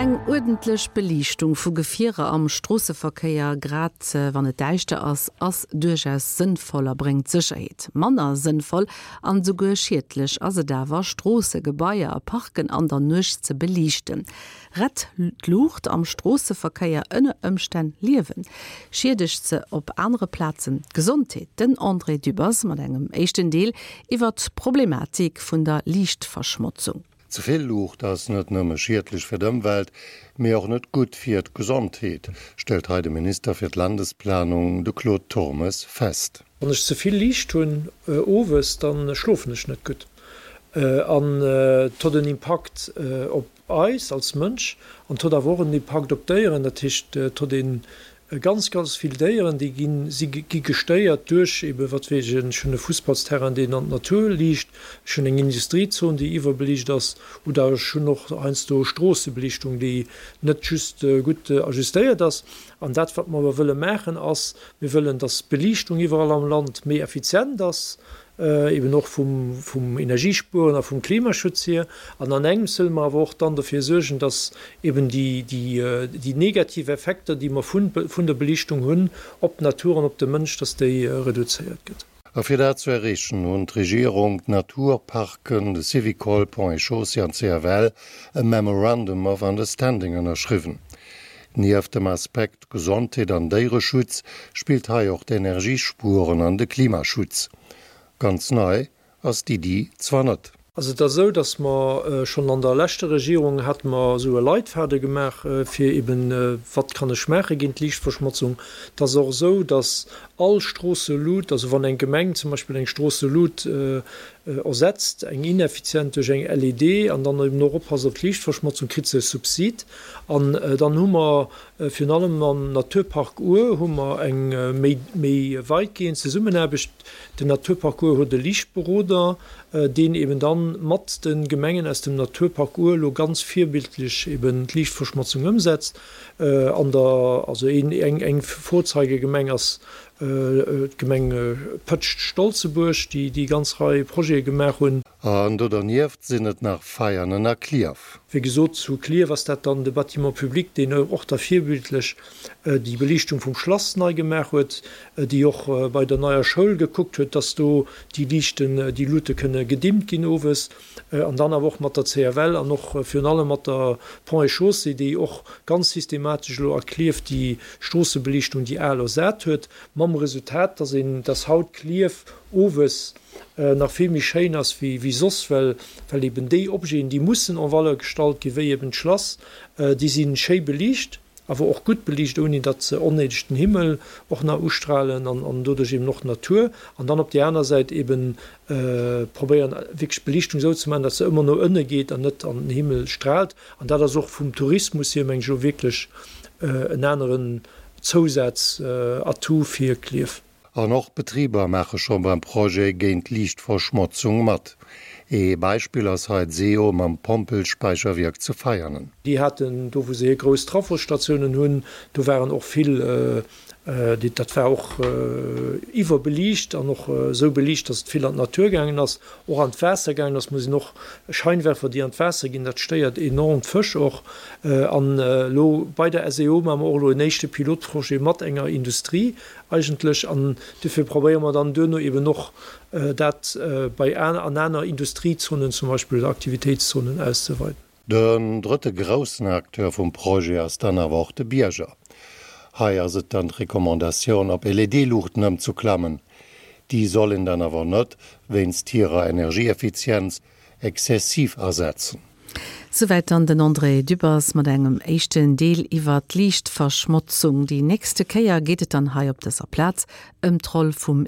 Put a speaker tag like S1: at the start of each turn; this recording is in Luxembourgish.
S1: Eng uerdentlech Beliichtung vu Gefierer am Stroosseverkéier, grad wann et däischter ass, ass duerchaus sënnvoll a bréngt Sécherheet. Manner sënnvoll an esouguer schiedlech ass et awer, Stroosse, Gebaier a Parken an der Nuecht ze beliichten. Rett d'Luucht am Stroosseverkéier ënner Ëmstänn Liewen? Schiedegt se op anere Plazen d'Gesondheet? Den André Dübbers mat engem éischten Deel iwwer d'Problematik vun der Liichtverschmotzung.
S2: Ze vill Luucht ass net nëmme schiedlech fir d'Ëmwelt, mee och net gutt fir d'Gesondheet, stellt hei de Minister fir d'Landesplanung, de Claude Turmes, fest.
S3: Wann ech ze vill Liicht hunn owes, da schlofen ech net gutt an et huet en Impakt op eis als Mënsch an et huet awer och en Impakt op d'Déieren. Dat heescht, et huet een Ganz, ganz vill Déieren, déi ginn, si gi gestéiert duerch ebe wat weess ech, ech hunn e Fussballsterrain, deen an d'Natur liicht, ech hunn eng Industriezon, déi iwwerbeliicht ass, oder ech hunn och heiansdo Stroossebeliichtung, déi net just gutt ajustéiert ass. An dat, wat mer awer wëlle maachen, ass, mir wëllen, dass d'Beliichtung iwwerall am Land méi effizient ass, eben och vum Energiespueren a vum Klimaschutz hier. An an engems wëlle mer awer och dann dofir suergen, dass eben déi negativ Effekter, déi mer vun der Belichtung hunn op d'Natur an op de Mënsch, dass déi reduzéiert gëtt.
S2: A fir dat ze erreechen, hunn d'Regierung, d'Naturparken, de Syvicol, Ponts et Chaussées an d'CFL e Memorandum of Understanding ënnerschriwwen. Nieft dem Aspekt Gesondheet an Déiereschutz spillt hei och d'Energiespueren an de Klimaschutz. Ganz nei ass d'Iddi zwar net.
S3: Also et ass esou, datt mer schonn an der leschter Regierung hate mer esou e Leitfaden gemaach, fir eben, wat kann ech maache géint d'Liichtverschmotzung. Et ass och esou, datt all Stroosselut, also wann eng Gemeng zum Beispill eng Stroosselut ersetzt, eng ineffizient duerch eng LED an dann eben och oppasst op d'Liichtverschmotzung, kritt se e Subsid. An dann hu mer virun allem am Naturpark Our hu mer eng méi méi weitgehend Zesummenaarbecht. Den Naturpark Our huet e Liichtberoder, deen eben dann mat de Gemengen aus dem Naturpark Our elo ganz virbildlech eben d'Liichtverschmotzung ëmsetzt. An der, also een, eng, eng Vorzeigegemeng ass d'Gemeng Pëtscht-Stolzebuerg, déi déi ganz Rei Projete gemaach hunn.
S2: An do dernieft sinn et nach Veianen a Clierf.
S3: Wéi gesot, zu Clierf ass dat dann de Bâtiment public, deen och da virbildlech déi Beliichtung vum Schlass nei gemaach huet, déi och bei der neier Schoul gekuckt huet, dass do déi Liichten, déi Luute kënne gedimmt ginn owes. An dann awer och mat der CFL an och virun allem mat der Ponts et Chaussées, déi och ganz systematesch elo a Clierf déi Stroossebeliichtung, déi al, ersat huet, mam Resultat, dass een, dass haut Clierf owes nach vill méi schéin ass wéi soss, well well eben déi Objeten, déi mussen en valeur gestallt ginn, wéi eben d'Schlass, déi si schéi beliicht, awer och gutt beliicht, ouni datt se onnéideg den Himmel och nach ustrahlen an an doduerch eben och d'Natur. An dann op där aner Säit eben probéieren wierklech d'Beliichtung esou ze maachen, datt se ëmmer no ënne geet an net an den Himmel strahlt. An dat ass och vum Tourismus hier, meng ech, elo wierklech en aneren Zousaz-Atout fir Klierf.
S2: An och Betriber maache scho beim Projet géint Liichtverschmotzung mat. Ee Beispill ass hei d'SEO mam Pompelspäicherwierk zu Veianen.
S3: Déi haten do, wou se hir grouss Trafosstatiounen hunn, do waren och vill, dat war och iwwerbeliicht an och esou beliicht, datt et vill an d'Natur gaangen ass, och an d'Waasser gaangen ass. Muss een och Scheinwerfer, déi an d'Waasser ginn, dat stéiert enorm d'Fësch och. An elo bei der SEO maache mer och elo en éischte Pilotprojet mat enger Industrie, eigentlech, an dofir probéiere mer dann duerno eben och dat bei an aner Industriezonen zum Beispill oder Aktivitéitszonen auszeweiden.
S2: Den drëtte groussen Acteur vum Projet ass dann awer och de Bierger. Hei ass et dann d'Recommandatioun op LED-Luuchten ëmzuklammen. Déi soll een dann awer net wéinst hirer Energieeffizienz exzessiv asetzen.
S1: Souwäit dann den André Dübbers mat engem éischten Deel iwwer d'Liichtverschmotzung. Déi nächste Kéier geet et dann hei op dëser Plaz ëm d'Roll vum.